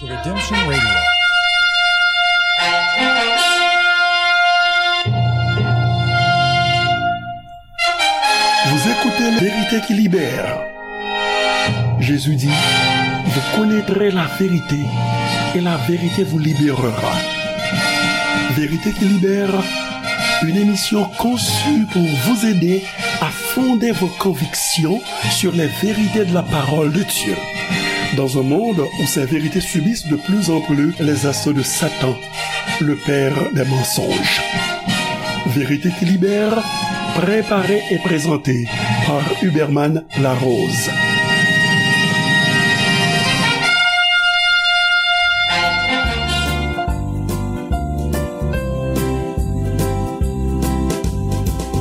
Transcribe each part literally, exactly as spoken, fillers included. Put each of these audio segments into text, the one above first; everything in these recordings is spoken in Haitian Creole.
Redemption Radio. Vous écoutez Vérité qui libère. Jésus dit, vous connaîtrez la vérité et la vérité vous libérera. Vérité qui libère, une émission conçue pour vous aider à fonder vos convictions sur les vérités de la parole de Dieu. Dans un monde où ces vérités subissent de plus en plus les assauts de Satan, le père des mensonges. Vérité qui libère, préparée et présentée par Huberman Larose.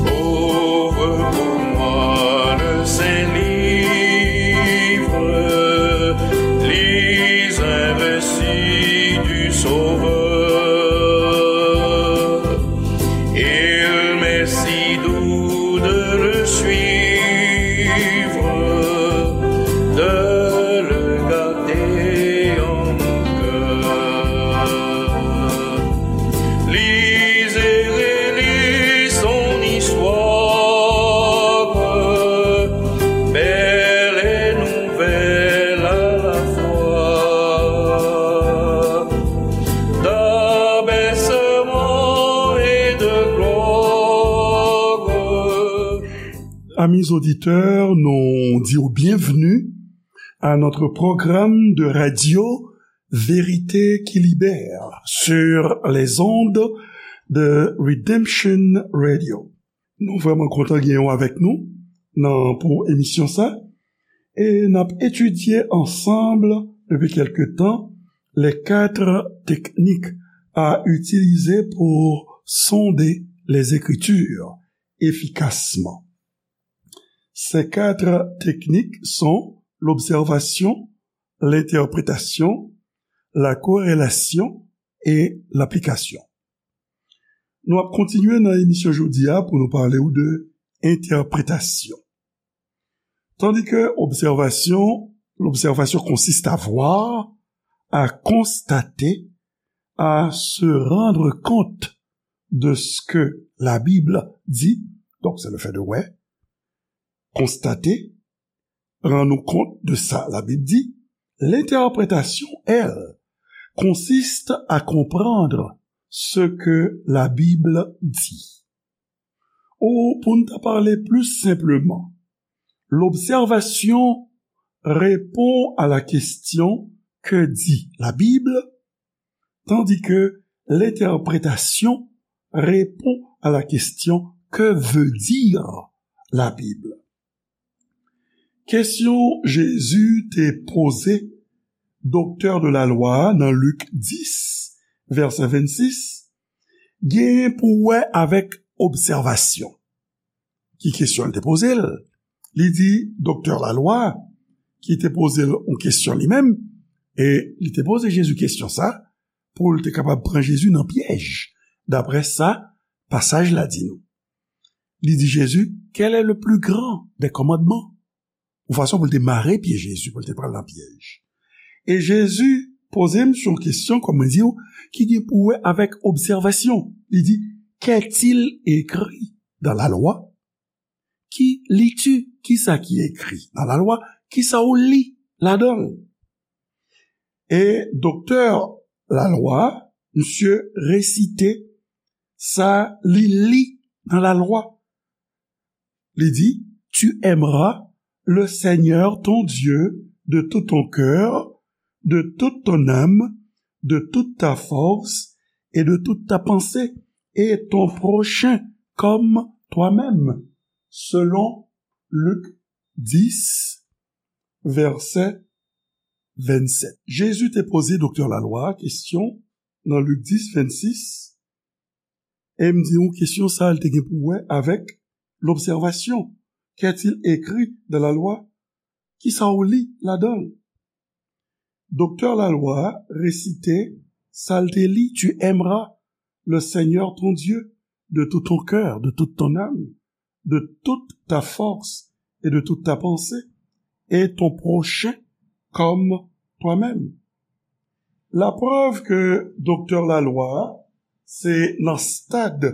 Ouvre pour moi le Saint-Livre, lis un récit du Sauveur. Il m'est si doux de le suivre, de le garder en mon cœur. Lis et relis son histoire, belle et nouvelle à la fois. D'abaissement et de gloire. Amis auditeurs, nous disons bienvenue à notre programme de radio Vérité qui libère sur les ondes de Redemption Radio. Nou vrèman kontan gen w avèk nou nan, pou emisyon sa. E n ap etidye ansanm depi kèlke tan les quatre techniques à utiliser pour sonder les Écritures efficacement. Ces quatre techniques sont l'observation, l'interprétation, la corrélation et l'application. Nou ap kontinye nan emisyon jodi a pou nou pale w de entèpretasyon. Tandis que observation, l'observation consiste à voir, à constater, à se rendre compte de ce que la Bible dit, donc c'est le fait de ouais, constater, rann ou kont de sa Labib di, l'interprétation, elle, consiste à comprendre ce que la Bible dit. Ou, pou n ta pale pli senpleman, l'observation répond à la question que dit la Bible, tandis que l'interprétation répond à la question que veut dire la Bible. Kesyon Jezi te poze doktè de la lwa nan Lik dis, vèsè vennsis, genyen pou wè avèk obsèvasyon. Ki kesyon l te poze l? Li di doktè lalwa ki te poze l yon kesyon li menm, e li te poze Jezi kesyon sa pou l te kapab pran Jezi nan pyèj, daprè sa pasaj la di nou. Li di Jezi, quel est le plus grand des commandements? Yon fason pou l te mare pye Jezi, pou l te pran l nan pyèj. E Jezi poze misye yon kesyon, kòm mwen di w, ki gen pou wè avèk obsèvasyon. Li di, qu'est-il écrit dans la loi? Ki lis-tu? Kisa ki ekri nan lalwa? Kisa w li ladan l? E doktè lalwa, misye resite sa li li nan lalwa. Li di, tu aimeras le Seigneur ton Dieu de tout ton cœur, de toute ton âme, de toute ta force et de toute ta pensée, et ton prochain comme toi-même, selon Lik dis, vèsè vennsèt. Jezi te poze doktè lalwa a kesyon nan Lik dis, vennsis, e m di nou kesyon sa a, l te gen pou wè avèk lobsèvasyon. Qu'est-il écrit dans la loi? Kisa w li ladan l? Doktè lalwa a resite sa l te li, tu aimeras le Seigneur ton Dieu de tout ton cœur, de toute ton âme, de toute ta force et de toute ta pensée, et ton prochain comme toi-même. Laprèv ke doktè lalwa a, se nan stad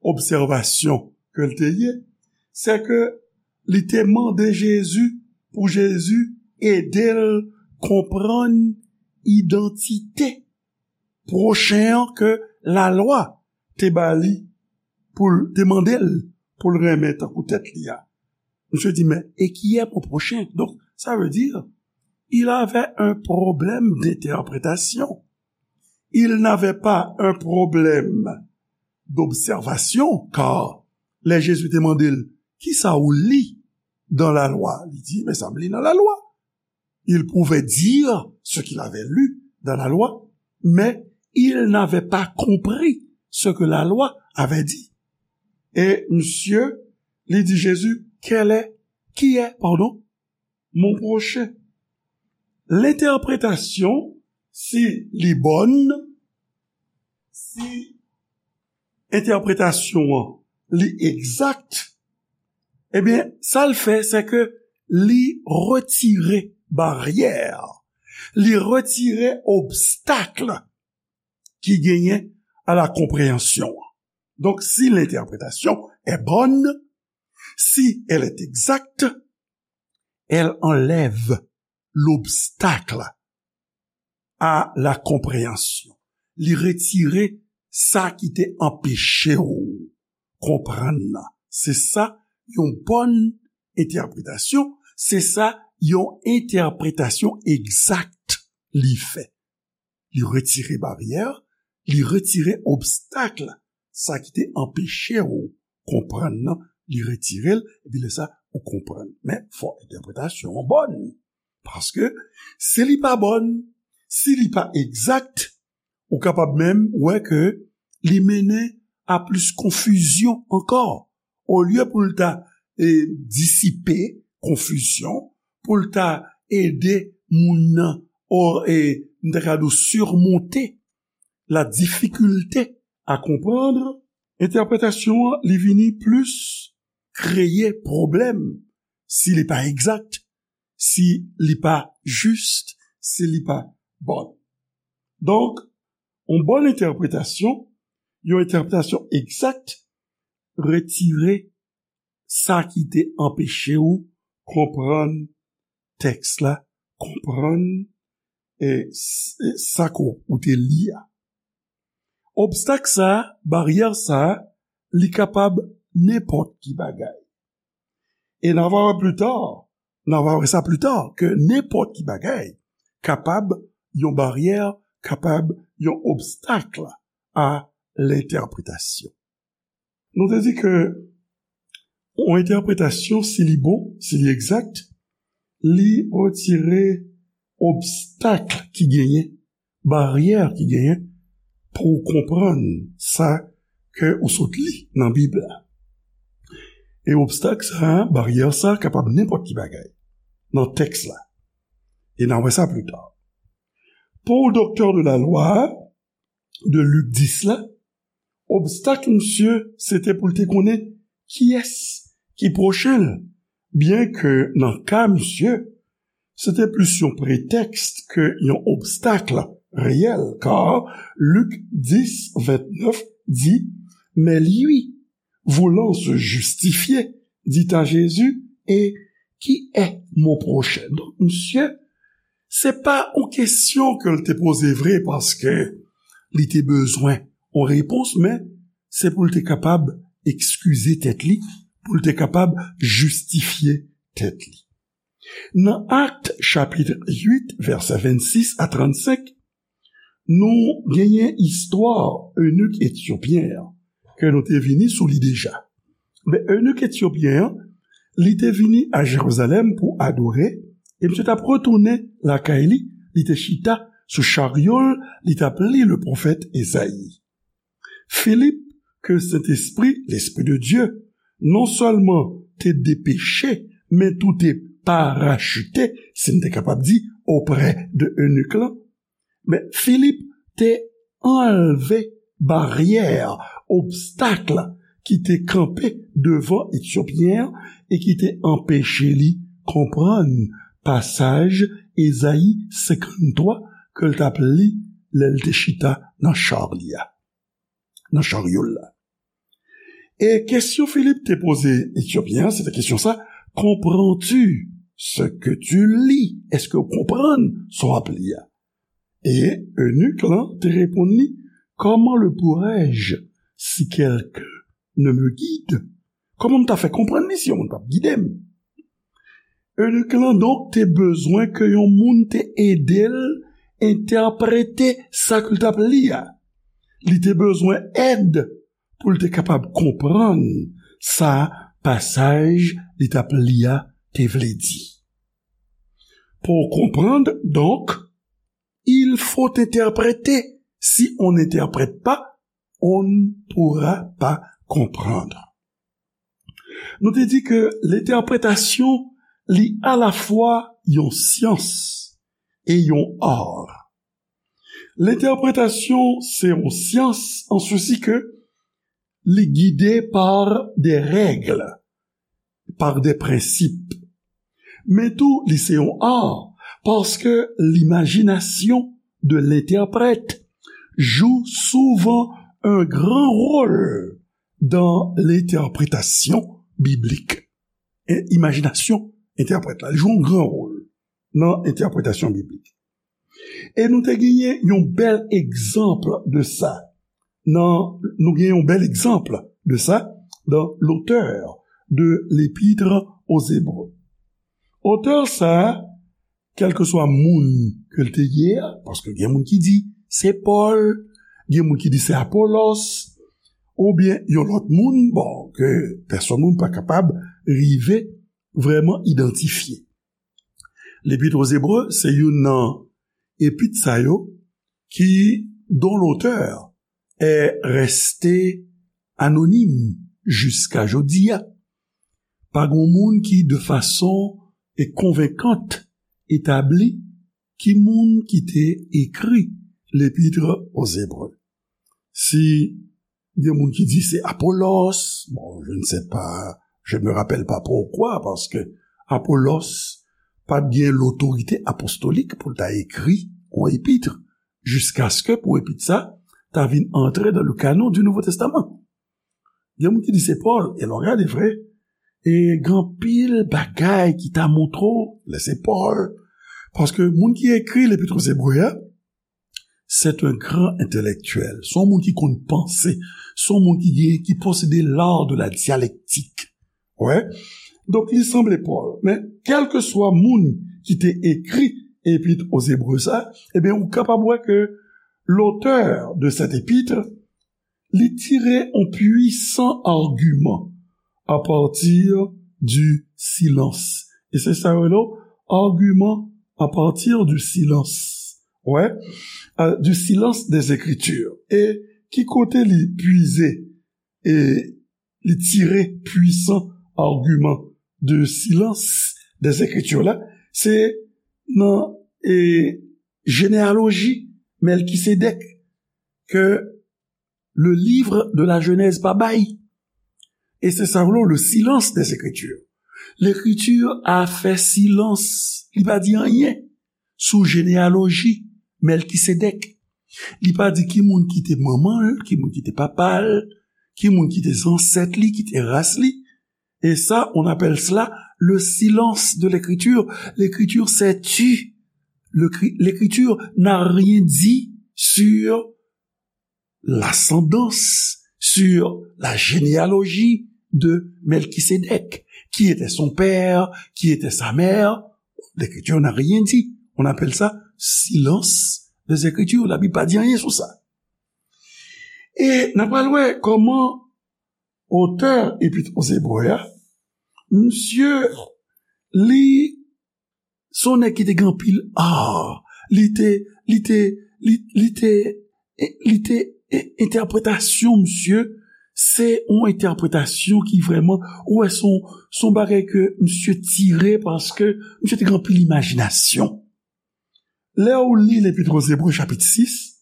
obsèvasyon ke l te ye, se ke li te mande Jezi pou Jezi ede l konprann idantite pwochen an ke lalwa te ba li pou l te mande l pou l renmen tankou tèt li a. Misye di, mais et qui est mon prochain? Donc, ça veut dire, il avait un problème d'interprétation. Il n'avait pas un problème d'observation, car lè Jezi te mande l, kisa ou li dans la loi? Li di, men sa m li nan lalwa. Il pouvait dire ce qu'il avait lu dans la loi, mais il n'avait pas compris ce que la loi avait dit. E misye, li di Jezi, quel est, qui est, pardon, mon prochain? L'interprétation, si li bòn, si entèpretasyon an li egzak, ebyen, sa l fè, se ke li retire baryè, li retire obstak ki genyen a la konpreyansyon an. Donc, si l'interprétation est bonne, si elle est exacte, elle enlève l'obstacle à la compréhension. Li retire sa ki te anpeche w konprann nan. Se sa yon bòn entèpretasyon, se sa yon entèpretasyon egzak li fè. Li retire baryè, li retire obstak, sa ki te anpeche w konprann nan, li retire l, epi lè sa, ou konprann. Men, fò entèpretasyon an bòn. Paske, si li pa bòn, si li pa egzak, ou kapab menm wè ke li mennen a plis konfizyon ankò. Olye pou l ta, e, disipe konfizyon, pou l ta ede moun nan, o, e, m ta ka di w, surmonter la difficulté à comprendre, entèpretasyon an, li vini plis kreye pwoblèm si li pa egzak, si li pa jis, si li pa bòn. Donk, yon bòn entèpretasyon, yon entèpretasyon egzak, retire sa ki te anpeche w konprann tèks la, konprann, e, s-, e, sa ke w te li a. Obstak sa a, baryè sa a, li kapab nenpòt ki bagay. E n a va wè pli ta, n a va wè sa pli ta, ke nenpòt ki bagay kapab yon baryè, kapab yon obstak a lentèpretasyon. Nou te di ke yon entèpretasyon, si li bon, si li egzak, li retire obstak ki genyen, baryè ki genyen pou w konprann sa ke ou sot li nan Bib la. E obstak sa, baryè sa, kapab nenpòt ki bagay nan tèks la. E n a wè sa pli ta. Pou doktè de la lwa a, de Lik dis la, obstak misye, se te pou l te konnen kiyès ki pwochen l, byen ke nan ka misye, se te plis yon pretèks ke yon obstak reyèl, kar Lik dis vennèf di, mais lui, voulant se justifier, dit à Jésus, et qui est mon prochain? Donk, misye, se pa yon kesyon ke l te poze vre paske li te bezwen yon repons, men se pou l te kapab ekskize tèt li, pou l te kapab jistifye tèt li. Nan Akt chapit uit, vèsè vennsis a trannsenk, nou genyen istwa enik etyopyen an, ke nou te vini sou li deja. Men enik etyopyen an, li te vini a Jerizalèm pou adore, e misye t ap retounen lakay li, li te chita sou charyo l, li t ap li le pwofèt Ezayi. Filip, ke Sentespri, Lespri de Dye, non sèlman te depeche, men tou te parachite, si n te kapab di, oprè de enik lan. Men Filip te anlve baryè, obstak ki te kanpe devan Etyopyen an e ki te anpeche li konprann pasaj Ezayi senkanntwa ke l t ap li lè l te chita nan cha li a, nan charyo l la. E kesyon Filip te poze Etyopyen an, se te kesyon sa, comprends-tu ce que tu lis? Èske w konprann sa w ap li a? E enik lan te reponn li, comment le pourrais-je si quelqu'un ne me guide? Kòman m ta fè konprann li si yon moun p ap gide m? Enik lan donk te bezwen ke yon moun te ede l entèprete sa ke l t ap li a. Li te bezwen èd pou l te kapab konprann sa pasaj li t ap li a te vle di. Pour comprendre, donc, il faut interpréter. Si on n'interprète pas, on ne pourra pas comprendre. Nou te di ke lentèpretasyon li alafwa yon syans e yon ar. Lentèpretasyon se yon syans an sesi ke li gide par des règles, par des principes. Men tou, li se yon ar, paske limajinasyon de lentèprèt joue souvent un grand rôle dans l'interprétation biblique. E imajinasyon entèprèt la, li jwe yon gran wòl nan entèpretasyon biblik. E nou te genyen yon bèl egzanp de sa. Nan, nou genyen yon bèl egzanp de sa dans l'auteur de l'Épître aux Hébreux. Otè sa a, kèlkeswa moun ke l te ye a, paske gen moun ki di se Pòl, gen moun ki di se Apolos, oubyen yon lòt moun, bon, ke pèsonn moun pa kapab rive vrèman idantifye. L'Épître aux Hébreux se youn nan epit sa yo ki, dont l'auteur est resté anonyme jiska jodi a. Pa gen moun ki, de fason e konvenkant, etabli ki moun ki te ekri L'Épître aux Hébreux. Si gen moun ki di se Apolos, bon, je ne sais pas, je me rappelle pas pourquoi, paske Apolos pa t gen lotorite apostolik pou l ta ekri yon epit jiskaske pou epit sa ta vin antre dans le canon du Nouveau Testament. Gen moun ki di se Pòl, e lè w gade vre, e gen anpil bagay ki ta montre w lè se Pòl. Paske moun ki ekri L'Épître aux Hébreux a, c'est un grand intellectuel. Se yon moun ki konn panse, se yon moun ki gen, ki posede l'art de la dialectique. Wè. Donk, li sanble Pòl. Men, kèlkeswa moun ki te ekri Épître aux Hébreux sa, ebyen, ou kapab wè ke l'auteur de cette épître, li tire yon pwisan agiman à partir du silence. E se sa yo rele agiman à partir du silence. Wè, euh, du silence des Écritures. E ki kote li pwize e li tire pwisan agiman de silence des Écritures la, se nan e jeneyaloji Mèlkisedèk ke le livre de la Genèse pa bay. E se sa vle le silence des Écritures. L'écriture a fè silans, li pa di anyen sou jeneyaloji Mèlkisedèk. Li pa di ki moun ki te manman l, ki moun ki te papa l, ki moun ki te zansèt li, ki te ras li. Et ça, on appelle cela le silence de l'écriture. L'écriture s'est tue. Le cri- L'écriture n'a rien dit sur l'ascendance, sur la généalogie de Melchisédek. Qui était son père, qui était sa mère? L'écriture n'a rien dit. On appelle ça silence des Écritures. Labib pa di anyen sou sa. E n ap pral wè kòman otè Epit aux Hébreux a, misye, li se yon nèg ki te gen anpil ar. Li te, li te, li, li te, li te, entèpretasyon misye, se yon entèpretasyon ki vrèman, ou wè, se yon, se yon bagay ke misye tire paske misye te gen anpil imajinasyon. Lè ou li Lepit aux Hébreux chapit sis,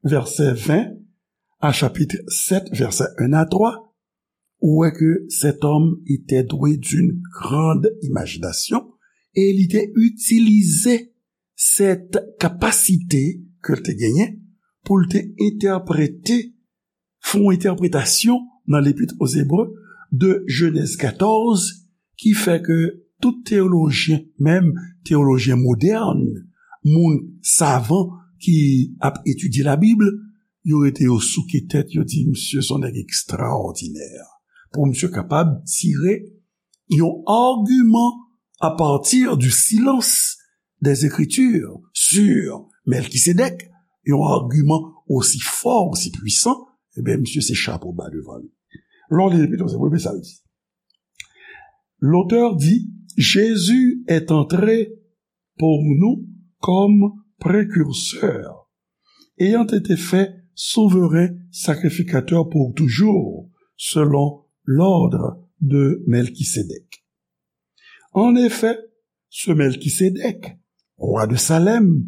vèsè ven, a chapit sèt, vèsè en a twa, ou wè ke cet homme était doué d'une grande imagination e li te itilize cette capacité ke l te genyen pou l te entèprete, fè yon entèpretasyon nan Lepit o Zebre de Jenèz katòz, ki fè ke tout teyolojyen, menm teyolojyen modèn, moun savan ki ap etidye Labib, yo rete yo souke tèt, yo di, "Misye se yon nèg ekstraòdinè." Pou misye kapab tire yon agiman à partir du silence des Écritures sur Melkisedèk, yon agiman osi fò, osi pwisan, ebyen, misye se chapo ba devan li. Lè w li Lepit o Zebre, men sa l di. L'auteur dit, Jésus est entré pour nous comme précurseur, ayant été fait souverain sacrificateur pour toujours, selon l'ordre de Melchisédek. En effet, ce Melchisédek, roi de Salem,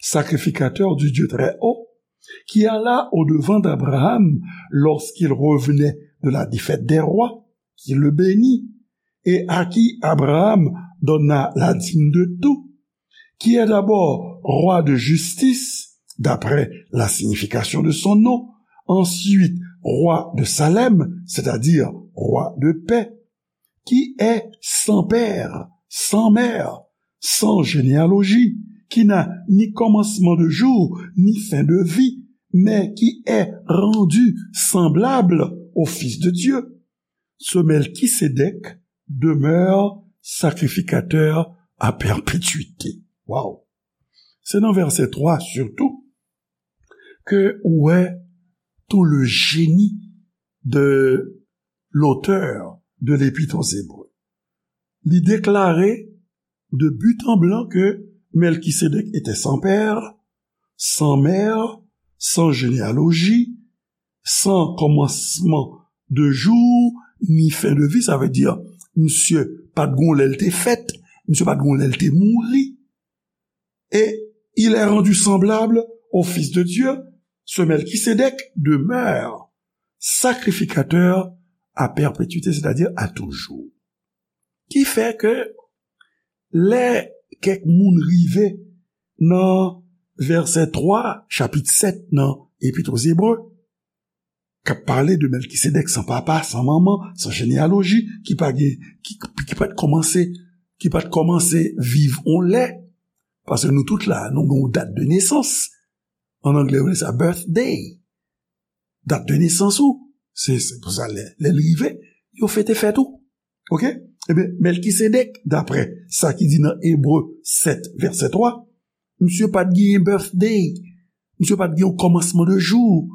sacrificateur du Dieu très haut, qui alla au-devant d'Abraham lorsqu'il revenait de la défaite des rois, qui le bénit, et à qui Abraham donna la dîme de tout, qui est d'abord roi de justice, d'après la signification de son nom, ensuite roi de Salem, c'est-à-dire roi de paix, qui est sans père, sans mère, sans généalogie, qui n'a ni commencement de jour, ni fin de vie, mais qui est rendu semblable au Fils de Dieu. Ce Melchisédek demeure sacrificateur à perpétuité. Wow! Se nan vèsè twa, sitou, ke ou wè tout le génie de l'auteur de l'Épître aux Hébreux. Li deklare de but en blanc que Melchisédek était sans père, sans mère, sans généalogie, sans commencement de jour, ni fin de vie. Sa vle di, misye pa t gon lè l te fèt, misye pa t gon lè l te mouri. Et il est rendu semblable au Fils de Dieu, ce Melchisédek demeure sacrificateur à perpétuité, c'est-à-dire à toujours. Ki fè ke lè kèk moun rive nan vèsè twa, chapit sèt nan Epit o Zebre, k ap pale de Melkisedèk san papa, san manman, san jeneyaloji, ki pa gen, ki, ki pa t kòmanse, ki pa t kòmanse viv on lè, paske nou tout la, nou gen yon dat de nesans. An anglè, yo rele sa birthday. Dat de nesans ou, se, se pou sa, lè, lè l rive, yo fete fèt ou. Oke? Ebyen, Melkisedèk, daprè sa ki di nan Ebre sèt, vèsè twa, misye pa t gen birthday, misye pa t gen yon kòmansman de jou,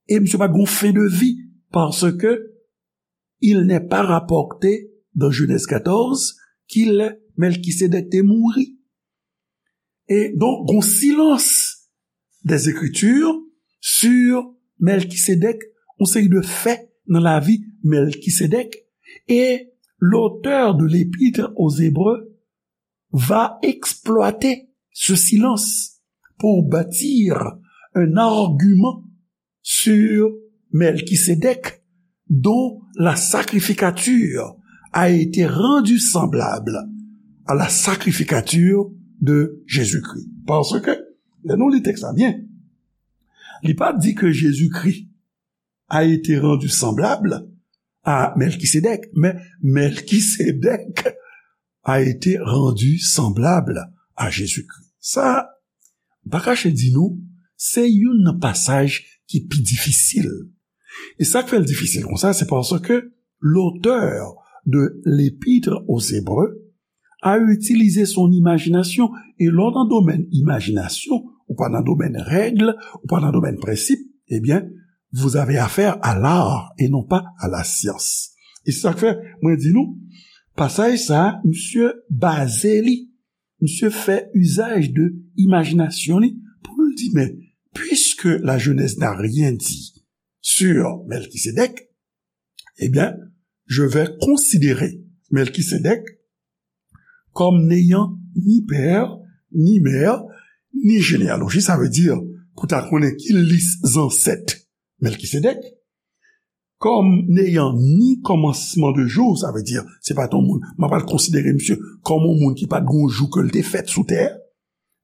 e misye pa t gen yon fen de vi, paske il n'est pas rapporté dans Genèse quatorze qu'il Melkisedèk te mouri. E donk, gon silans des Écritures sur Melkisedèk, yon seri de fè nan lavi Melkisedèk, e l'auteur de l'Épître aux Hébreux va exploiter ce silence pour bâtir un argument sur Melkisedèk, dont la sacrificature a été rendue semblable à la sacrificature de Jésus-Christ. Paske, lè nou li tèks la byen, li pa di ke Jezikri a été rendu semblable à Melkisedèk, men Melkisedèk a été rendu semblable à Jésus-Christ. Sa, m pa kache di nou, se youn nan pasaj ki pi difisil. E sa k fè l difisil konsa, se paske l'auteur de l'Épître aux Hébreux a utilisé son imagination. E lè w nan domèn imajinasyon, ou pa nan domèn règ, ou pa nan domèn prensip, ebyen, vous avez affaire à l'art et non pas à la science. E se sa k fè, mwen di nou, pasaj sa a, misye baze li, misye fè usage de imagination li pou l di, mais puisque la Genèse n'a rien dit sur Melkisedèk, eh bien, je vais considérer Melkisedèk comme n'ayant ni père, ni mère, ni généalogie, sa vle di, pou ta konnen ki lis zansèt Melkisedèk, comme n'ayant ni commencement de jour, sa vle di, se pa t yon moun, m ap al konsidere misye kòm yon moun ki pa t gon jou ke l te fèt sou tè,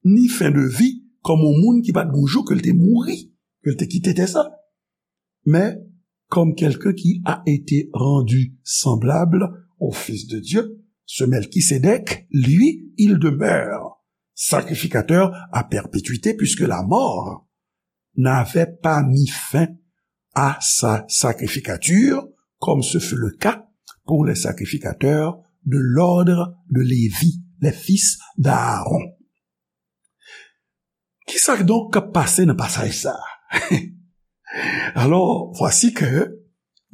ni fin de vie, kòm yon moun ki pa t gon jou ke l te mouri. ke l te kite tè sa. Mais comme quelqu'un qui a été rendu semblable au Fils de Dieu, ce Melchisédek, lui, il demeure sacrificateur à perpétuité, puisque la mort n'avait pas mis fin à sa sacrificature, comme ce fut le cas pour les sacrificateurs de l'ordre de Lévi, les fils d'Aaron. Kisa donk k ap pase nan pasaj sa a? Alò, vwasi ke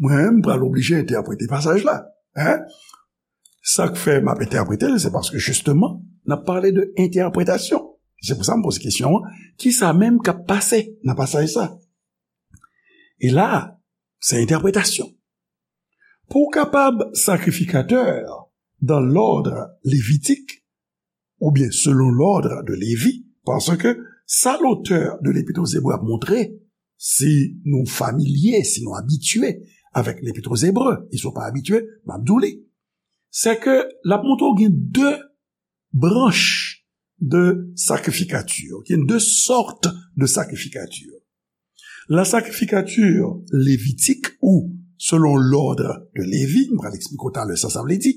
mwen menm pral oblije entèprete pasaj la. Hein? Sa k fè m ap entèprete l, se paske jisteman, n ap pale de entèpretasyon. Se pou sa m poze kesyon an, kisa menm k ap pase nan pasaj sa? E la, se entèpretasyon. Pou w kapab sakrifikatè dans l'ordre lévitique, oubyen selon l'ordre de Lévi, paske sa lotè de Lepit o Zebre ap montre, si nou familye, si nou abitye avèk Lepit o Zebre, e si w pa abitye, m ap di w li, se ke l ap montre w gen de branch de sacrificature, gen de sortes de sacrificature. La sacrificature lévitique ou selon l'ordre de Lévi, m pral eksplike w talè sa sa vle di,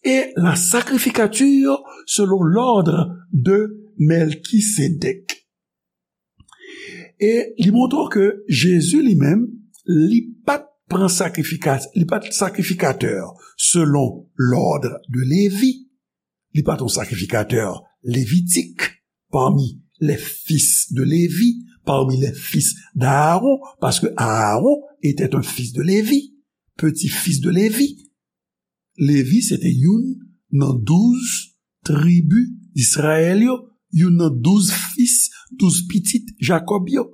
e la sacrificature selon l'ordre de Melchisédek. E li montre w ke Jezi li menm, li pa t pran sakrifika-, li pa t sakrifikatè selon l'ordre de Lévi. Li pa t yon sakrifikatè levitik parmi les fils de Lévi, parmi les fils d'Aaron, parce que Aaron était un fils de Lévi, petit-fils de Lévi. Lévi se te youn nan douz tribi Izrayèl yo, youn nan douz fis, douz pitit Jakòb yo.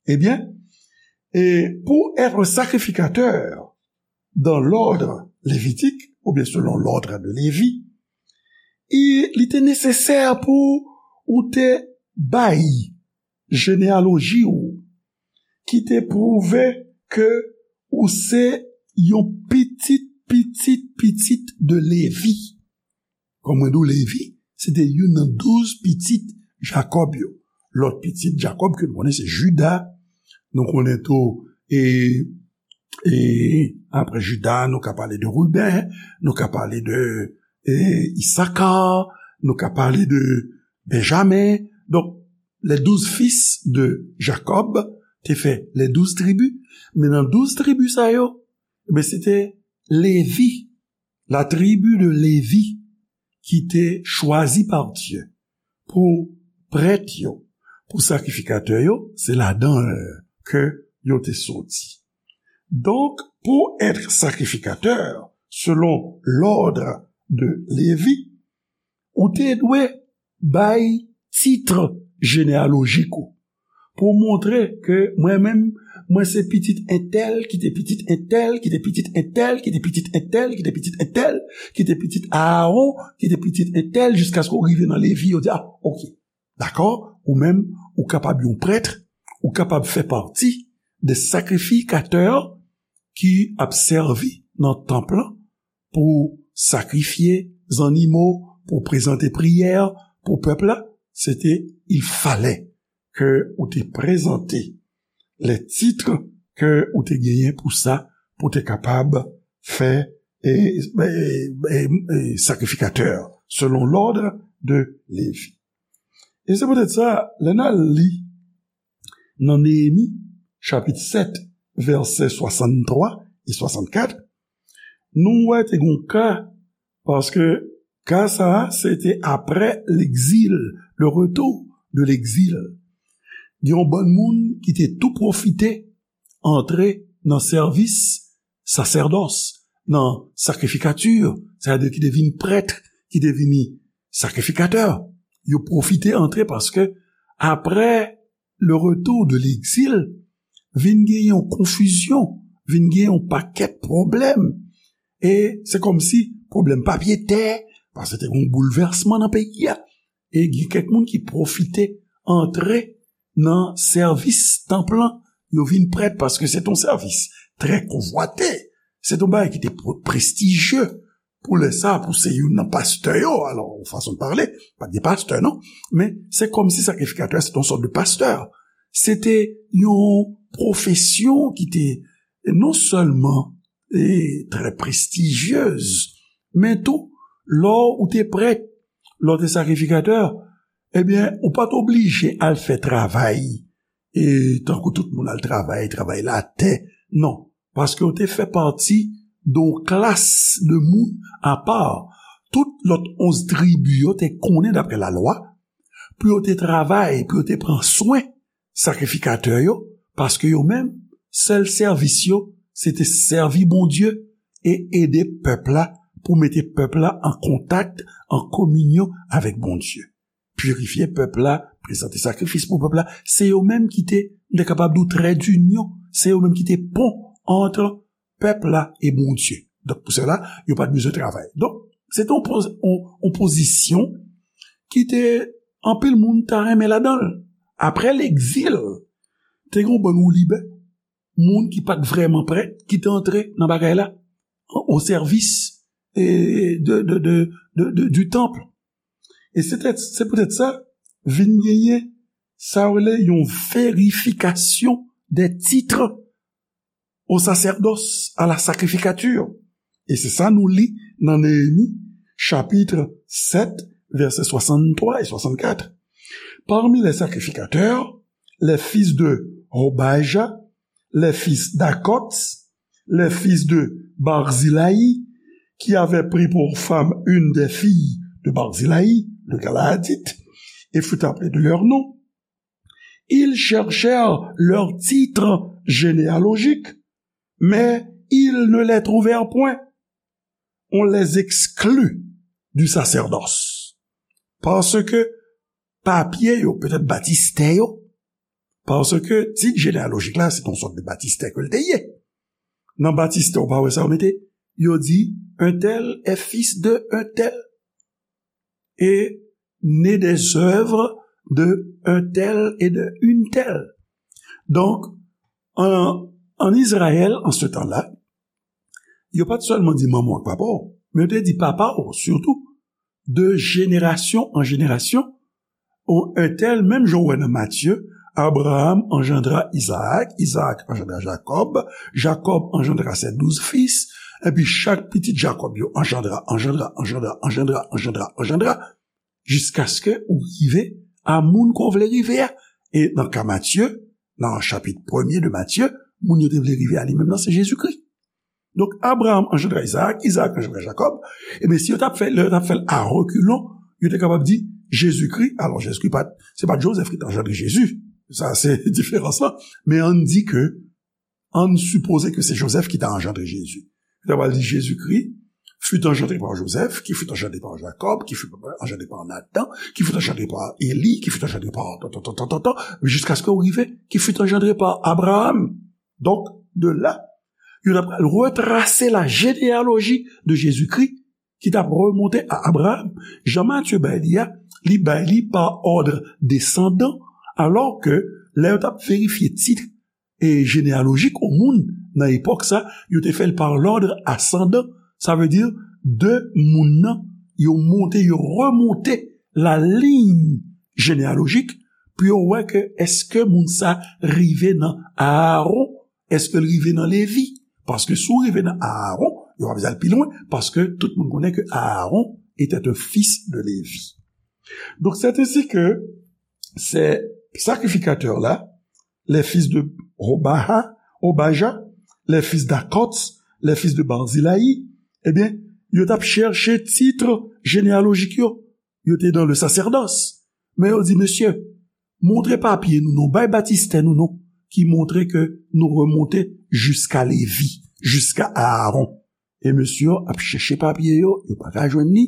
Ebyen, e pou être sacrificateur dans l'ordre lévitique, oubyen selon l'ordre de Lévi, e li te nesesè pou ou te bay jeneyaloji w ki te pwouve ke ou se yon pitit, pitit, pitit de Lévi. Kòm mwen di w, Lévi, se te youn nan douz pitit Jakòb yo. Lòt pitit Jakòb ke nou konnen se Jida. Nou konnen tou, e, e apre Jida, nou ka pale de Riben, nou ka pale de, e, Isaka, nou ka pale de Benjamen. Donk, les douze fils de Jacob te fè les douze tribus. Men nan douz tribi sa yo, ebyen, se te Lévi, la tribu de Lévi, ki te chwazi pa Dye pou prèt yo, pou sakrifikatè yo, se ladan ke yo te soti. Donk, pou être sacrificateur selon l'ordre de Lévi, ou te dwe bay tit jeneyalojik ou pou montre ke mwen menm, mwen se pitit entèl, ki te pitit entèl, ki te pitit entèl, ki te pitit entèl, ki te pitit entèl, ki te pitit Aaron, ki te pitit entèl, jiskaske w rive nan Lévi, yo di, a, oke, dakò, ou menm, ou kapab yon prèt, ou kapab fè pati de sakrifikatè ki ap sèvi nan tanp lan, pou sakrifye zannimo, pou prezante priyè pou pèp la, se te, il fallait ke ou te prezante les titres ke ou te genyen pou sa, pou te kapab fè, e, e, e, e, sakrifikatè selon l'ordre de Lévi. E se poutèt sa, lè n al li nan Neyemi, chapit sèt, vèsè swasanntwa e swasannkat, nou wè te gon ka, paske ka sa a, se te apre legzil, le retour de l'exil. Gen yon bann moun ki te tou pwofite antre nan sèvis sasèdòs, nan sakrifikati, sètadi ki te vin prèt, ki te vini sakrifikatè. Yo pwofite antre paske apre le retour de l'exil, vin gen yon konfizyon, vin gen yon pakèt pwoblèm. E se kòmsi pwoblèm papye tè, paske te gen yon boulvèsman nan peyi a. E gen kèk moun ki pwofite antre nan sèvis tanp lan, yo vin prèt paske se t on sèvis trè konvwate. Se t on bagay ki te pre-, prestijye pou lè sa, pou se youn nan pastè yo. Alò, yon fason de pale, pa t gen pastè, non? Men se kòmsi sakrifikatè a se t on sòt de pastè. se te yon pwofesyon ki te non sèlman e, trè prestijyez, men tou, lè w te prèt, lè w te sakrifikatè, ebyen, ou pa t oblije al fè travay, e, tankou tout moun al travay, travay latè, non, paske w te fè pati de yon klas de moun apa. Tout lòt onz tribi yo te konnen, daprè lalwa, pou yo te travay, pou yo te pran swen sakrifikatè yo, paske yo menm, sèl sèvis yo, se te sèvi Bondye e ede pèp la, pou mete pèp la an kontak, an kominyon avèk Bondye. Pirifye pèp la, prezante sakrifis pou pèp la, se yo menm ki te, m te kapab di w, trè dinyon, se yo menm ki te pon ant pèp la e Bondye. Donk, pou sèla, yo pa t bezwen travay. Donk, se te yon poz-, yon, yon pozisyon ki te anpil moun ta renmen ladan l. Apre legzil, te gen yon bann woulibè, moun ki pa t vrèman prèt, ki te antre nan bagay la, o sèvis e, de, de, de, de, de, du temple. E se te, se poutèt sa, vin genyen sa yo rele yon verifikasyon des titres au sacerdoce, à la sacrificature. E se sa nou li nan Neyemi, chapit sèt, vèsè swasanntwa e swasannkat. Parmi les sacrificateurs, les fils de Hobaja, les fils d'Akots, les fils de Barzilai, qui avaient pris pour femme une des filles de Barzilai, le Galaadite, et furent appelés de leur nom. Ils cherchèrent leur titre généalogique, mais ils ne les trouvèrent point. On les exclut du sacerdoce. Paske papye yo, petèt batistè yo, paske tit jeneyalojik la, se yon sòt de batistè ke l te ye. Nan batistè, ou pa wè sa yo mete? Yo di, un tel est fils de un tel. Et né des œuvres de un tel et de une telle. Donk, an, an Izrayèl, an se tan la, yo pa t sèlman di manman w ak papa w, men yo te di papa w sitou, de jenerasyon an jenerasyon, ou un tel, menm jan w wè nan Matye, Abraham engendra Isaac, Isaac engendra Jacob, Jacob engendra ses douze fils, epi chak pitit Jacob yo engendra, engendra, engendra, engendra, engendra, engendra, jiskaske ou rive a moun ke w vle rive a. E nan ka Matye, nan chapit premye de Matye, moun yo te vle rive a li menm nan, se Jezikri. Donk, Abraham engendra Isaac, Isaac engendra Jacob. Ebyen, si yo t ap fè, lè yo t ap fè l a rekilon, yo te kapab di Jezikri. Alò, Jezikri pa t, se pa t Jozèf ki t anjandre Jezi. Sa, se diferans lan. Men ann di ke, ann sipoze ke se Jozèf ki t anjandre Jezi. Yo ta pral di Jezikri fut engendré par Joseph, qui fut engendré par Jacob, qui fut engendré par Nathan, qui fut engendré par Élie, qui fut engendré par tan, tan, tan, tan, tan, tan, jiskaske w rive, qui fut engendré par Abraham. Donk, de la, yo t ap pral retrase la généalogie de Jésus-Christ, ki t ap remonte a Abraham. Jan Matye bay li a, li bay li pa òd desandan, alò ke lè yo t ap verifye tit e jeneyalojik yon moun nan epòk sa, yo te fè l par lòd asandan. Sa vle di, de moun nan, yo monte, yo remonte la liy jeneyalojik pou yo wè ke èske moun sa rive nan Aaron, èske l rive nan Levi. Paske si w rive nan Aaron, yo pa bezwen al pi lwen, paske tout moun konnen ke Aaron était un fils de Lévi. Donc, c'est ainsi que ces sacrificateurs-là, les fils de Hobaha, Hobaja, les fils d'Akots, les fils de Barzilai, ebyen, yo t ap chèche tit jeneyalojik yo. Yo te dans le sacerdoce. Men yo di, mesye, montre papye nou non, bay batistè nou non, ki montre ke nou remonte jiska Levi, jiska Aaron. E mesye yo ap chèche papye yo, yo pa ka jwenn li.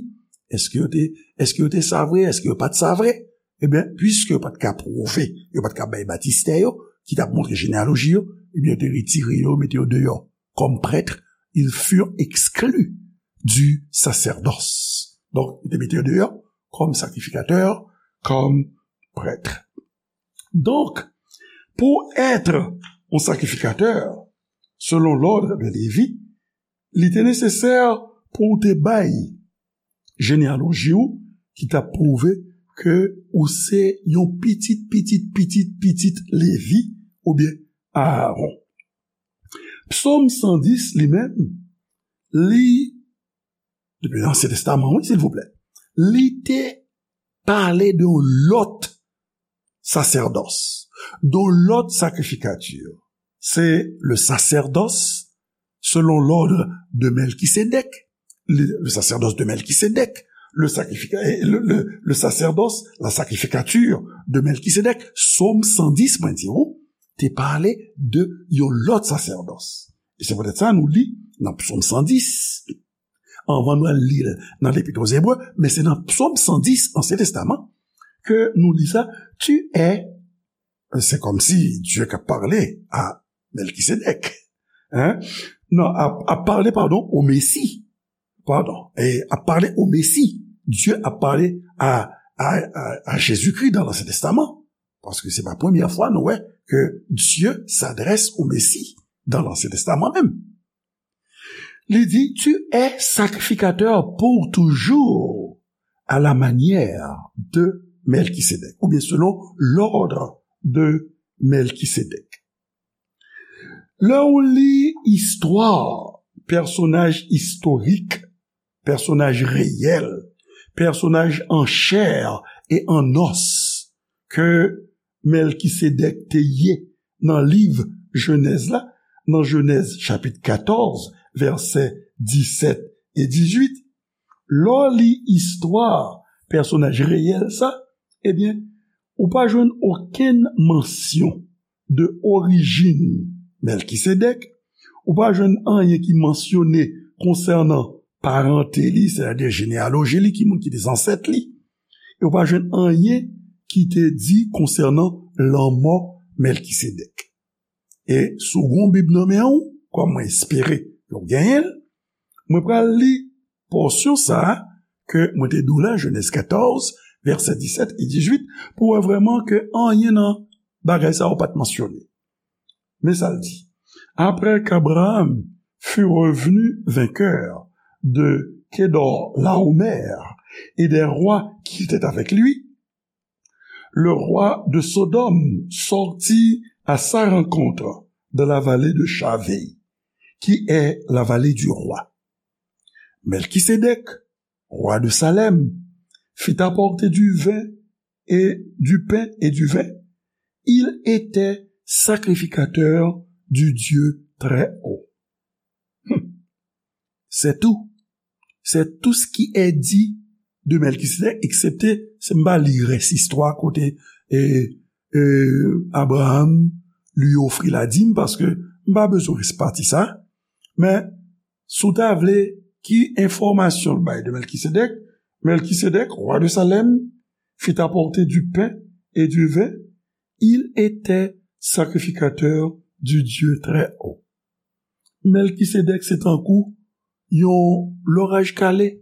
Èske yo te, èske yo te sa vre? Èske yo pa t sa vre? Ebyen, piske yo pa t ka pwouve, yo pa t ka bay batistè yo, ki t ap montre jeneyaloji yo, ebyen, yo te retire yo, mete yo deyò. Comme prêtres, ils furent exclus du sacerdoce. Donk, yo te mete yo deyò, comme sacrificateurs, comme prêtres. Donk, pou èt yon sakrifikatè, selon l'ordre de Lévi, li te nesesè pou w te bay jeneyaloji w ki t ap pwouve ke ou se yon pitit, pitit, pitit, pitit Levi oubyen Aaron. Psaume cent dix, li menm, li, depi Ansyen Testaman, wi, silvouplè, li te pale de yon lòt sasèdòs, de yon lòt sakrifikati. Se le sacerdoce selon l'ordre de Melchisédek, le, le sacerdoce de Melchisédek, le, sacrifica- eh, le, le, le sacerdoce, la sacrificature de Melchisédek, Sòm san dis, mwen di ou, te pale de yon lòt sasèdòs. E se poutèt sa nou li nan Psaume cent dix, anvan nou al li l nan Lepit aux Hébreux, men se nan Psaume cent dix, Ansyen Testaman, ke nou li sa, tu es, c'est comme si Dieu a parlé à Melchisédek. Hein? Non, a, a parlé, pardon, au Messie. Pardon. Et a parlé au Messie. Dieu a parlé à, à, à, à Jésus-Christ dans l'Ancien Testament. Paske se pa premyè fwa nou wè ke Dieu s'adresse au Messie dans l'Ancien Testament menm. Li di, tu es sacrificateur pour toujours à la manière de Melchisédek, oubyen selon l'ordre de Melchisédek. Lè w li istwa pèsonaj istorik, pèsonaj reyèl, pèsonaj an chè e an nòs ke Melchisédek te ye nan liv Jenèz la, nan Jenèz chapit katòz, vèsè disèt e dizuit, lè w li istwa pèsonaj reyèl sa, ebyen, ou pa jwenn okenn mansyon de orijin Melchisédek, ou pa jwenn anyen ki mansyone konsènan parante li, sètadi jeneyaloji li, ki moun ki te zansèt li, e ou pa jwenn anyen ki te di konsènan lanmò Melchisédek. E si w gen yon Bib nan men w, kòm mwen espere ke w genyen l, mwen pral li pòsyon sa a ke mwen te di w la, Jenèz katòz, vèsè disèt e dizuit, pou w wè vrèman ke anyen nan bagay sa yo pa t mansyone. Men sa l di, après qu'Abraham fut revenu vainqueur de Kedorlaomer et des rois qui étaient avec lui, le roi de Sodome sortit à sa rencontre dans la vallée de Shavé, qui est la vallée du roi. Melchisédek, roi de Salem, fit apporter du vin et du pain et du vin. Il était sacrificateur du Dieu très haut. Hmm. C'est tout. C'est tout ce qui est dit de Melchisédek, eksepte si m pa li rès istwa kote e, e, Abraham li ofri ladim, paske m pa bezwen rès pati sa. Men, si w ta vle, ki enfòmasyon l bay de Melchisédek? Melchisédek, roi de Salem, fit apporter du pain et du vin. Il était sacrificateur du Dieu très haut. Melchisédek se tankou yon loraj kale.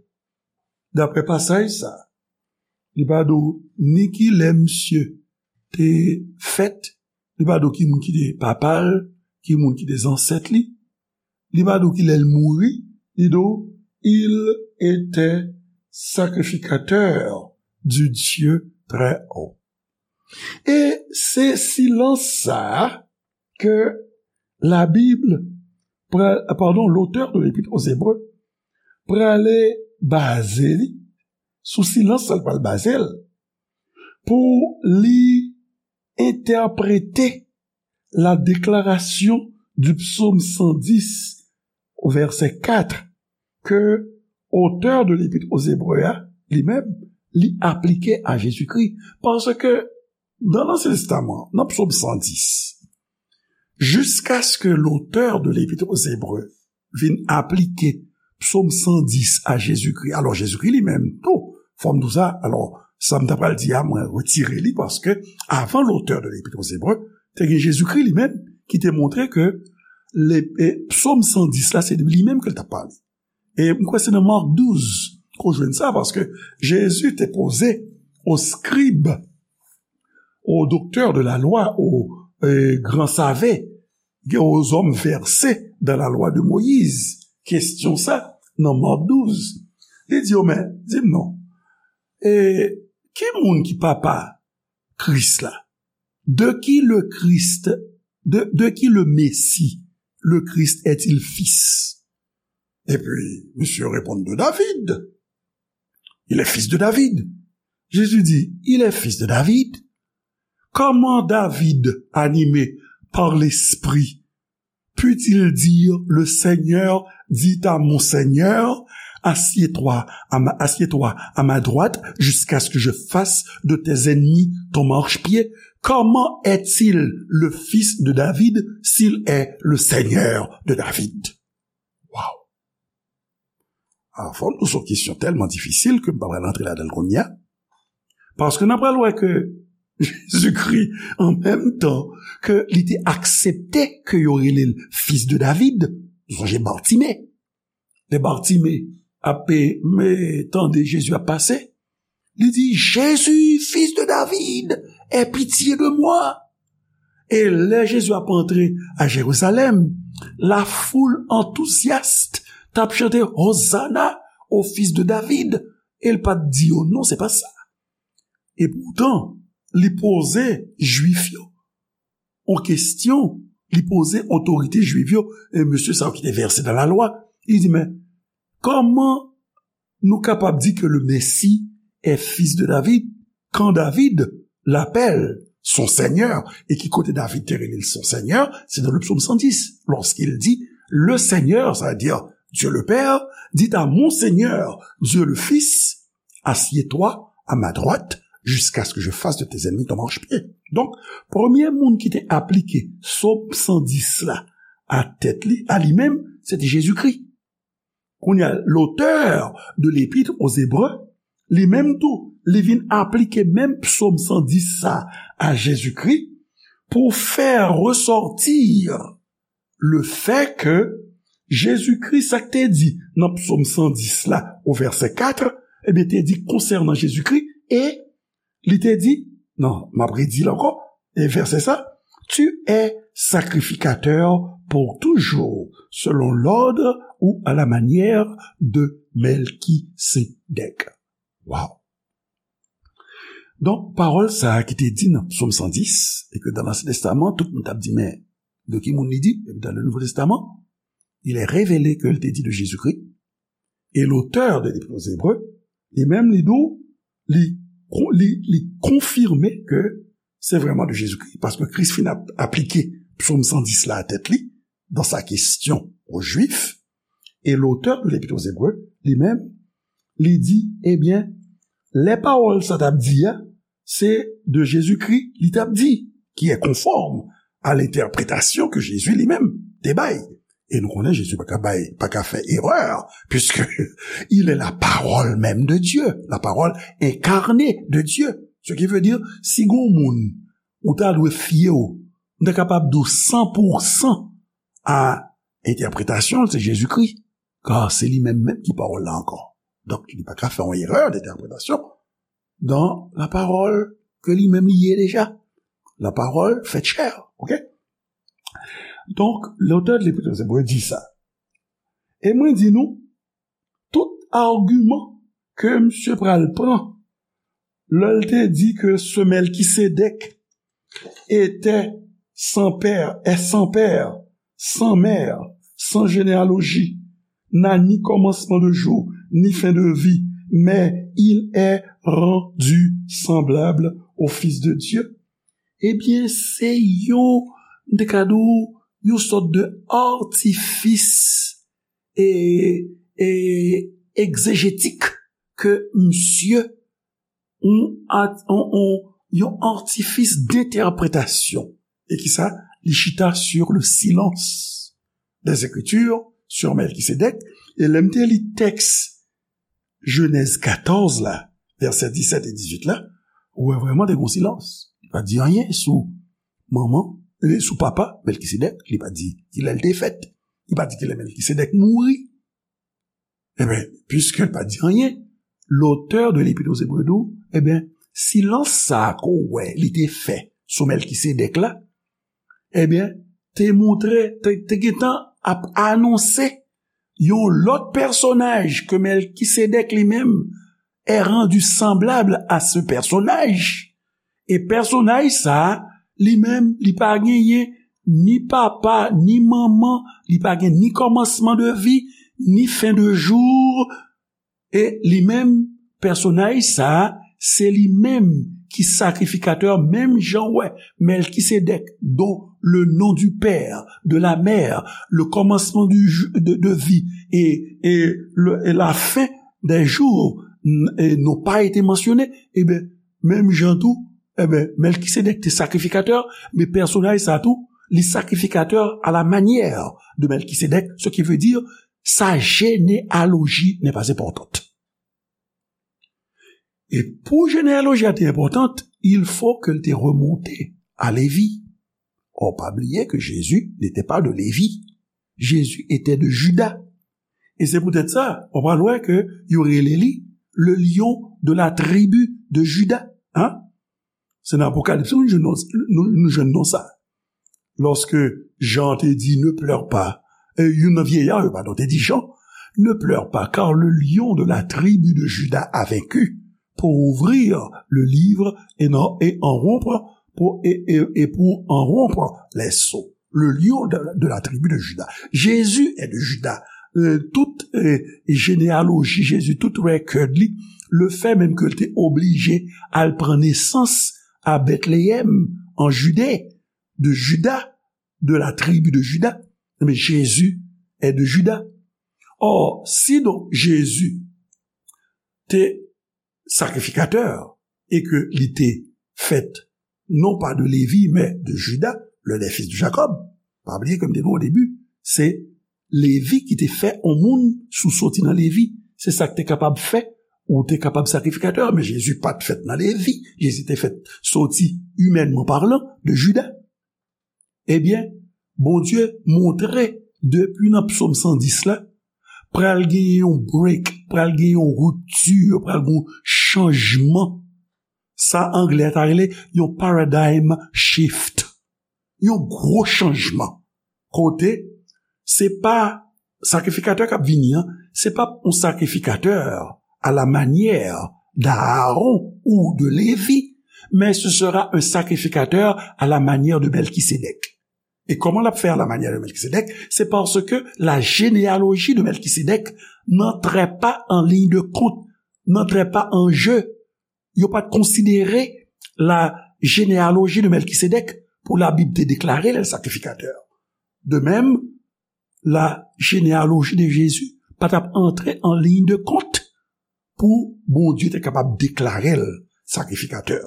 Daprè pasaj sa, li pa di w ni ki lè misye te fèt, li pa di w ki moun ki te papa l, ki moun ki te zansèt li, li pa di w ki lè l mouri, li di w, il était sacrificateur du Dieu très haut. E se silans sa a ke Labib, pra- pardon, l'auteur de l'Épître aux Hébreux, prale baze li, sou silans sa l pral baze l, pou li entèprete la déclaration du psaume cent dix au verset quatre ke otè de Lepit aux Hébreux a, li menm, li aplike a Jezikri. Paske nan Ansyen Testaman, nan Psòm san dis, jiskaske lotè de Lepit aux Hébreux vin aplike Psòm san dis a Jezikri, alò Jezikri li menm tou, fò m di w sa, alò sa m ta pral di a, mwen retire li, paske avan lotè de Lepit aux Hébreux, te gen Jezikri li menm ki te montre ke le, e, Psòm san dis la, se de li menm ke l t ap pale. E m kwè se nan Mak douz ke w jwenn sa, paske Jezi te poze aux scribes, aux docteurs de la loi, aux, e, grands savants, aux hommes versés dans la loi de Moïse, kesyon sa nan Mak douz. Li di yo, men, di m non, e, Ki moun ki papa Kris la? De qui le Christ, de, de qui le Messie, le Christ est-il fils? Et puis, monsieur répond de David. Il est fils de David. Jésus dit, il est fils de David. Comment David, animé par l'Esprit, put-il dire, le Seigneur dit à mon Seigneur, assieds-toi à ma, assieds-toi à ma droite jusqu'à ce que je fasse de tes ennemis ton marchepied? Comment est-il le fils de David s'il est le Seigneur de David? Wow! Fò m di w se yon kesyon tèlman difisil ke m pa pral antre ladan l kounye a. Paske n ap pral wè ke Jezikri, an menm tan ke li te aksepte ke yo rele l fis de David, nou sonje Batime. Lè Batime ap tande Jezi ap pase, li di, Jésus, fils de David, aie pitié de moi. E lè Jezi ap antre a Jerizalèm, lafoul antouzyas t ap chante Hosanna au fils de David. E l pa t di yo non, se pa sa. E poutan, li poze Jwif yo yon kesyon, li poze otorite Jwif yo, e mesye sa yo ki te vèse nan lalwa, li di, men, kòman nou kapab di ke le Messie est fils de David, quand David l'appelle son Seigneur, et ki kote David te rele l son Seigneur, c'est dans le psaume cent dix, lorsqu'il dit, le Seigneur, ça veut dire Dieu le Père, dit à mon Seigneur, Dieu le Fils, assieds-toi à ma droite jusqu'à ce que je fasse de tes ennemis ton marchepied. Donk, premye moun ki te aplike Sòm san dis la a tèt li, a li menm, se te Jezikri. Kounye a, l'auteur de l'Épître aux Hébreux, li menm tou, li vin aplike menm Sòm san dis sa a Jezikri pou fè resòti le fait que Jezikri, sa k te di nan Sòm san dis la, o vèsè kat, ebyen, te di konsènan Jezikri, e li te di, non, m ap redi l ankò, e vèsè sa, tu es sacrificateur pour toujours, selon l'ordre ou à la manière de Melchisédek. Wow! Donk, pawòl sa a ki te di nan Sòm san dis, e ke dan Lansyen Testaman, tout moun t ap di, men, de ki moun li di? Epi dan le Nouvo Testaman, il est révélé ke l te di de Jezikri. E l'auteur de l'Épître aux Hébreux, li menm, li di w, li, li, li konfime ke se vrèman de Jezikri, paske Kris fin ap, aplike Sòm san dis la a tèt li, dans sa question aux Juifs, et l'auteur de l'Épître aux Hébreux, li menm, li di, ebyen, lè pawòl sa t ap di a, se de Jezikri li t ap di, qui est conforme à l'interprétation que Jésus lui-même te bay. E nou konnen Jezi pa ka bay, pa ka fè erè, puisque il est la parole même de Dieu, la parole incarnée de Dieu. Ce qui veut dire, si gon moun ou ta dwe fye w, m ta kapab di w san pou san a entèpretasyon l, se Jezikri. Kar se li menm menm ki pawòl la ankò. Donk, li pa ka fè yon erè d'entèpretasyon dan la parole ke li menm li ye deja. La parole faite chair, ok? Donk, l'auteur de l'Épître aux Hébreux di sa. E mwen di nou, tout agiman ke misye pral pran, lè l te di ke ce Melchisédek était sans père, est sans père, sans mère, sans généalogie, n'a ni commencement de jour, ni fin de vie, mais il est rendu semblable au Fils de Dieu. Ebyen, se yon, m te ka di w, yon sòt de atifis e, e egzejetik ke misye, yon at-, yon, yon, yon atifis d'entèpretasyon. E ki sa? Li chita sur le silence des Écritures sur Melchisédek. E lè m te li tèks Jenèz katòz la, vèsè disèt e dizuit la, ou wè vrèman te gon silans. Li pa di anyen sou manman, e sou papa Melchisédek, li pa di kilè l te fèt. Li pa di kilè Melchisédek mouri. Ebyen, puisque l pa di anyen, l'auteur de l'Épître aux Hébreux di w, ebyen, silans sa a ke w wè li te fè sou Melchisédek la, ebyen, te montre, te, te gentan ap anonse yon lòt pèsonaj ke Melchisédek li menm est rendu semblable à ce personnage. E pèsonaj sa a, li menm, li pa genyen ni papa, ni manman, li pa gen ni kòmansman de vi, ni fen de jou. E li menm, pèsonaj sa a, se li menm ki sakrifikatè, menm jan w wè Mèlkisedèk, dont le nom du père, de la mère, le commencement du jou- de, de vie et, et le- et la fin des jours n- et n'ont pas été mentionnés, ebyen, menm jan tou, ebyen, Mèlkisedèk te sakrifikatè, men pèsonaj sa tou, li sakrifikatè à la manière de Mèlkisedèk, ce qui veut dire sa généalogie n'est pas importante. E pou jeneyaloji a te enpòtan, il faut que l te remonte à Lévi. Or, pa bliye que Jésus n'était pas de Lévi. Jésus était de Juda. E se poutèt sa, w pral wè ke yo rele li le lion de la tribu de Juda. Hein? Se nan Apokalips nou jwenn non- nou, nou jwenn non sa. Lorsque Jean te di, ne pleure pas, e youn nan vyeya yo, padon, te di Jean, ne pleure pas, car le lion de la tribu de Juda a vaincu pour ouvrir le livre et, non, et en rompre pour, et, et, et pour en rompre les sceaux. Le lion de, de la tribu de Juda. Jésus est de Juda. Euh, tout euh, généalogie Jésus, tout record li, le fait même que l te oblije al pran nesans à Bethléem, en Judée, de Juda, de la tribu de Juda, mais Jésus est de Juda. Or, si donc Jésus te sakrifikatè e ke li te fèt non pa de Lévi, men de Juda, le, les fils de Jacob. Pa bliye ke m te di w o debi, se Lévi ki te fè yon moun sou soti nan Lévi. Se sa k te kapab fè ou te kapab sakrifikatè, men Jezi pa t fèt nan Lévi. Jezi te fèt soti, imènman palan, de Juda. Ebyen, Bondye montre depi nan Psòm san dis la, pral gen yon break, pral gen yon ripti, pral gen yon chanjman. Sa anglè ta rele yon paradigm shift. Yon gwo chanjman. Kote, se pa sakrifikatè k ap vini an, se pa yon sakrifikatè à la manière d'Aaron ou de Lévi, mais ce sera un sacrificateur à la manière de Melchisédek. E kòman l ap fè à la manière de Melchisédek? Se paske la généalogie de Melchisédek n'entrait pas en ligne de compte, n'entrait pas en jeu. Yo pa t konsidere la généalogie de Melchisédek pou Labib te deklare l sakrifikatè. De même, la généalogie de Jésus pa t ap antre en ligne de compte pou Bondye te kapab deklare l sakrifikatè.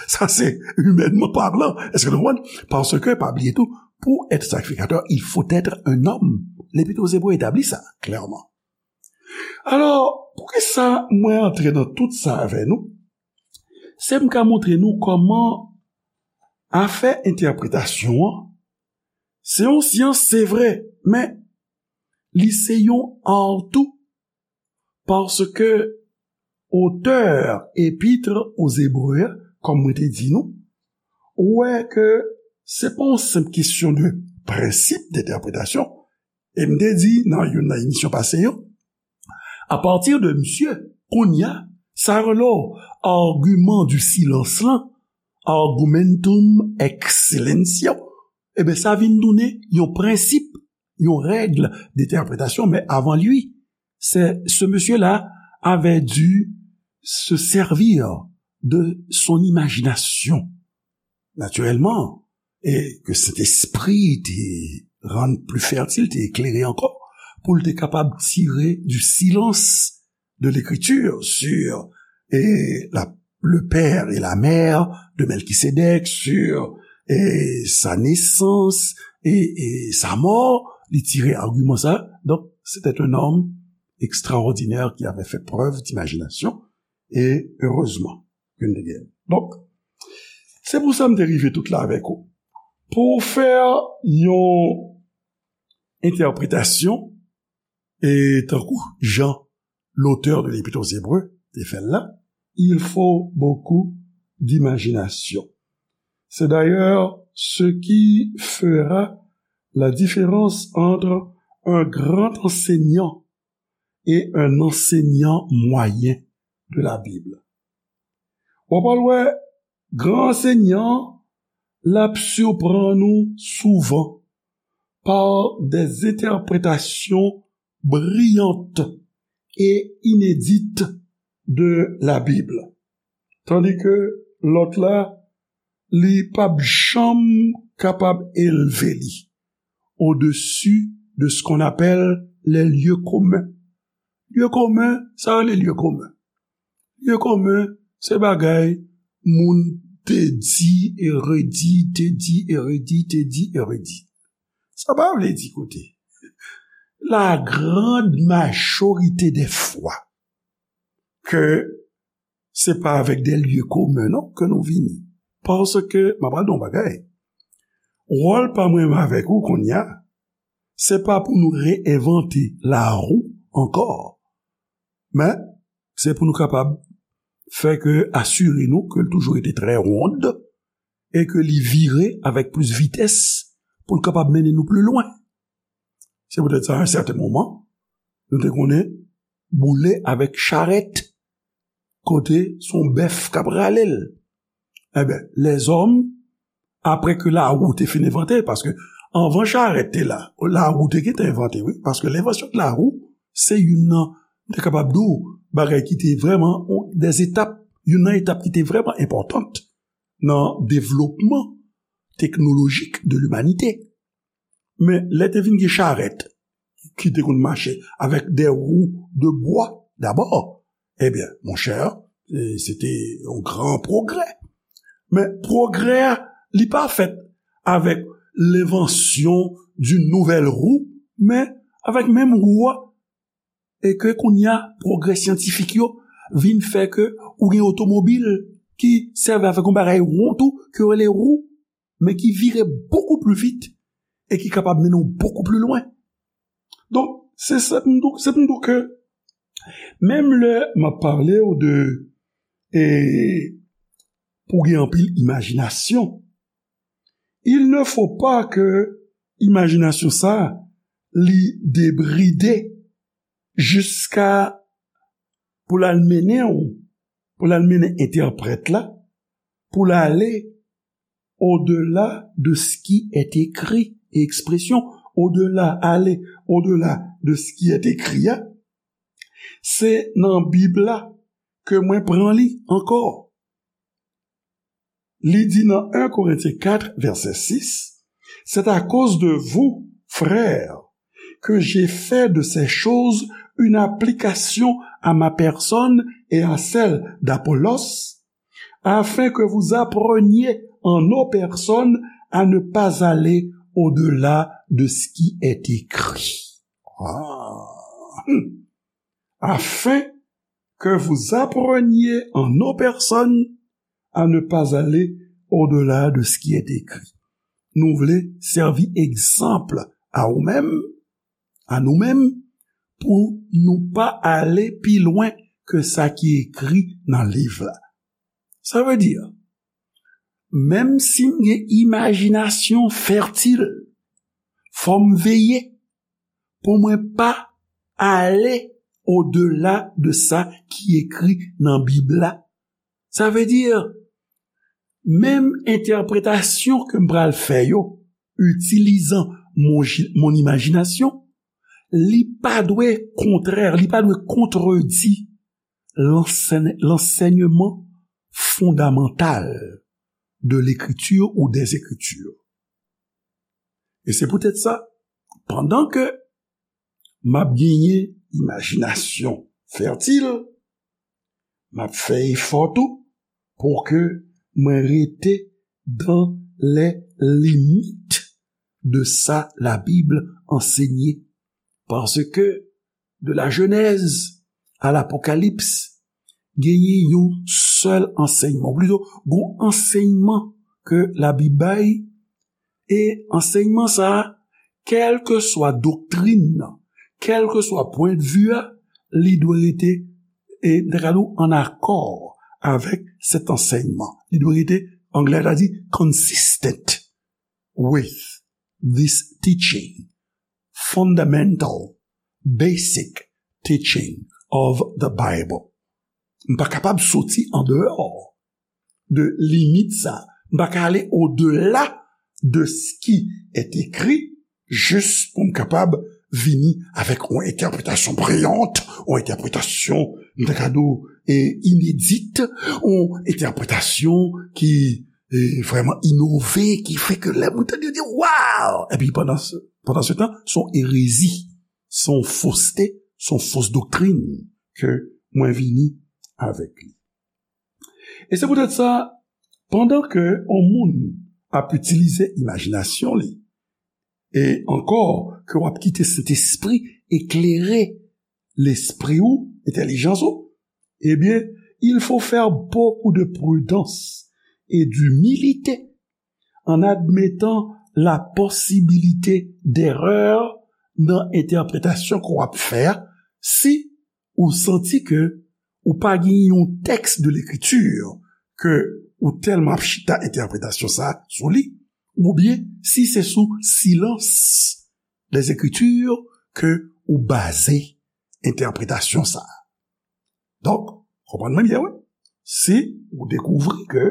Sa se imènman palan. Èske nou konprann? Paske, pa bliye tou, pour être sacrificateur, il faut être un homme. Lepit aux Hébreux etabli sa klèman. Alò, poukisa mwen antre nan tout sa avè nou? Se m ka montre nou kòman afè entèpretasyon an, se yon syans, se vre, men li se yon ar tou, paske otè Epître aux Hébreux, kòm mwen te di nou, ou wè ke se pa yon senp kesyon de prensip d'entèpretasyon, e m te di nan youn nan emisyon pase yo, apati de misye, kounye a, sa rele w argument du silence lan, argumentum ex silentio, ebyen, sa vin tounen yon prensip, yon règ d'entèpretasyon, men avant lui, c'est, ce monsieur-là avait dû se servir de son imagination. Naturellement, e ke Sentespri te rann pli fètil, te eklere ankò, pou l te kapab tire du silence de l'écriture sur, e, la, le père et la mère de Melchisédek, sur, e, sa naissance et, et sa mort, li tire agiman sa. Donc, c'était un homme extraordinaire qui avait fait preuve d'imagination, et heureusement. Yon dènyè. Donk, se pou sa m te rive tout la avèk ou. Pou w fè yon entèpretasyon, e tankou jan l'auteur de l'Épître aux Hébreux te fè l la, il faut beaucoup d'imagination. C'est d'ailleurs ce qui fera la différence entre un grand enseignant et un enseignant moyen. de la Bible. W ap al wè, Gran Ansèyman an, l ap siprann nou souvan par des interprétations brillantes et inédites de la Bible. Tandis que lòt la, li p ap janm kapab elve li au-dessus de ce qu'on appelle les lieux communs. Lye komen, sa rele lye komen. Lye komen, se bagay moun te di e redi, te di e redi, te di e redi. Sa pa vle di, koute, la grande majorité des fois, ke se pa avèk de lye komen non ke nou vini. Paske, m ap al di yon bagay, wòl pa mwen avèk ou kounye a, se pa pou nou reenvante larou ankò, men se pou nou kapab fè ke, asire nou ke l toujou rete trè wonn e ke li vire avèk plis vitès pou l kapab mennen nou pli lwen. Se poutèt sa, a yon sèten moman, nou te konnen boule avèk charèt, kote se yon bèf k ap rale l. Ebyen, lèzòm, apre ke larou te fin envante, paske anvan charèt te la, larou te gentan envante, wi, paske lenvansyon de larou, se youn nan, m te kapab di w, bagay ki te vrèman, de etap, youn nan etap ki te vrèman enpòtan nan devlopman teknolojik de limanite. Men lè te vin gen charèt ki te konn mache avèk de wou de bwa dabò, ebyen, monchè, e, se te yon gran pwogrè. Men pwogrè a, li pa fèt avèk lenvansyon d'une nouvelle roue, men avèk menm wou a. E ke kounye a, pwogrè syantifik yo vin fè ke ou gen otomobil ki sèvi avèk yon bagay won tou, ke yo rele wou, men ki vire bokou pli vit e ki kapab mennen w bokou pli lwen. Donk, se sa m di w, se pou m di w ke menm lè m ap pale w de, e, pou gen anpil imajinasyon, il ne faut pas que imajinasyon sa li debride jiska pou l al mennen w, pou l al mennen entèprèt la, pou l ale au-delà de ce qui est écrit, e ekspresyon au-delà, aller au-delà de ce qui est écrit a, se nan Bib la ke mwen pran li ankò. Li di nan un Corinthiens quatre, verset six, c'est à cause de vous, frères, que j'ai fait de ces choses une application à ma personne et à celle d'Apollos, afin que vous appreniez en nos personnes à ne pas aller au-delà de ce qui est écrit. Ah. Hmm. Afin que vous appreniez en nos personnes à ne pas aller au-delà de ce qui est écrit. Nou vle sèvi egzanp a ou menm, a nou menm, pou nou pa ale pi lwen ke sa ki ekri nan liv la. Sa vle di, menm si m gen imajinasyon fètil, fò m veye pou mwen pa ale au-delà de sa ki ekri nan Bib la. Sa vle di, menm entèpretasyon ke m pral fè yo, itilizan mon, mon imajinasyon, li pa dwe kontrè, li pa dwe kontredi lansèn, lansèyman fondamantal de l'écriture ou des Écritures. E se poutèt sa, pandan ke m ap genyen imajinasyon fètil, m ap fè efò tou pou ke mwen rete dans les limites de sa la Bible ansenye. Paske de la Genèse à l'Apocalypse, genyen yon sèl ansèyman, ou plito, gon ansèyman ke Labib bay, e ansèyman sa a, kèlkeswa doktrin nan, kèlkeswa pwendvi a, li dwe rete, e, m ta ka di w, an akò avèk sèt ansèyman. Li dwe rete, anglè ta di, consistent with this teaching, fundamental, basic teaching of the Bible. M pa kapab soti andeyò de limit sa. M pa ka ale odela de ce qui est écrit, jis pou m kapab vini avèk yon entèpretasyon briyant, yon entèpretasyon, m ta ka di w, e, inedit, yon entèpretasyon ki, e, vrèman inove, ki fè ke lè moun tande, yo di, "Waw!" Epi pandan se, pandan se tan, se yon erezi, se yon foste, se yon fos doktrin ke mwen vini avèk li. E se poutèt sa, pandan ke yon moun ap itilize imajinasyon li, e ankò ke w ap kite Sentespri eklere lespri w, entèlijans ou, ebyen, il faut faire beaucoup de prudence et d'humilité en admettant la possibilité d'erreur nan entèpretasyon ke w ap fè a, si ou santi ke ou pa gen yon tèks de lekriti ke ou tèlman ap chita entèpretasyon sa a sou li, oubyen si se sou silans des Écritures ke ou baze entèpretasyon sa a. Donk, konprann mwen byen, wi. Si ou dekouvri ke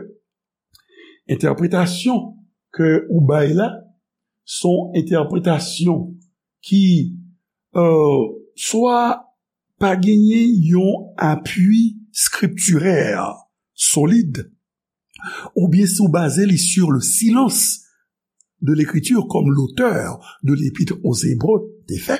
entèpretasyon ke ou bay la, se yon entèpretasyon ki, euh, swa pa genyen yon apui skriptirè solid, oubyen si w baze li sur le silence de l'Écriture, comme l'auteur de l'Épître aux Hébreux te fè,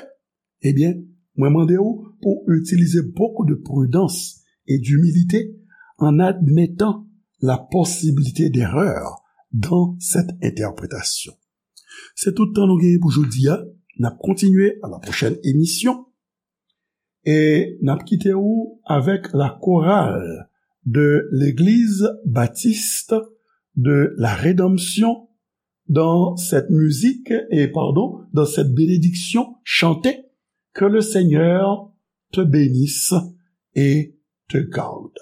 ebyen, mwen mande w pou w itilize beaucoup de prudence et d'humilité en admettant la possibilité d'erreur dans cette interprétation. Se tout tan nou genyen pou jodi a. N ap kontinye à la prochaine émission. E n ap kite w avec la chorale de l'Église Baptiste de la Rédemption dans cette musique, et pardon, dans cette bénédiction chantée. Que le Seigneur te bénisse et te garde.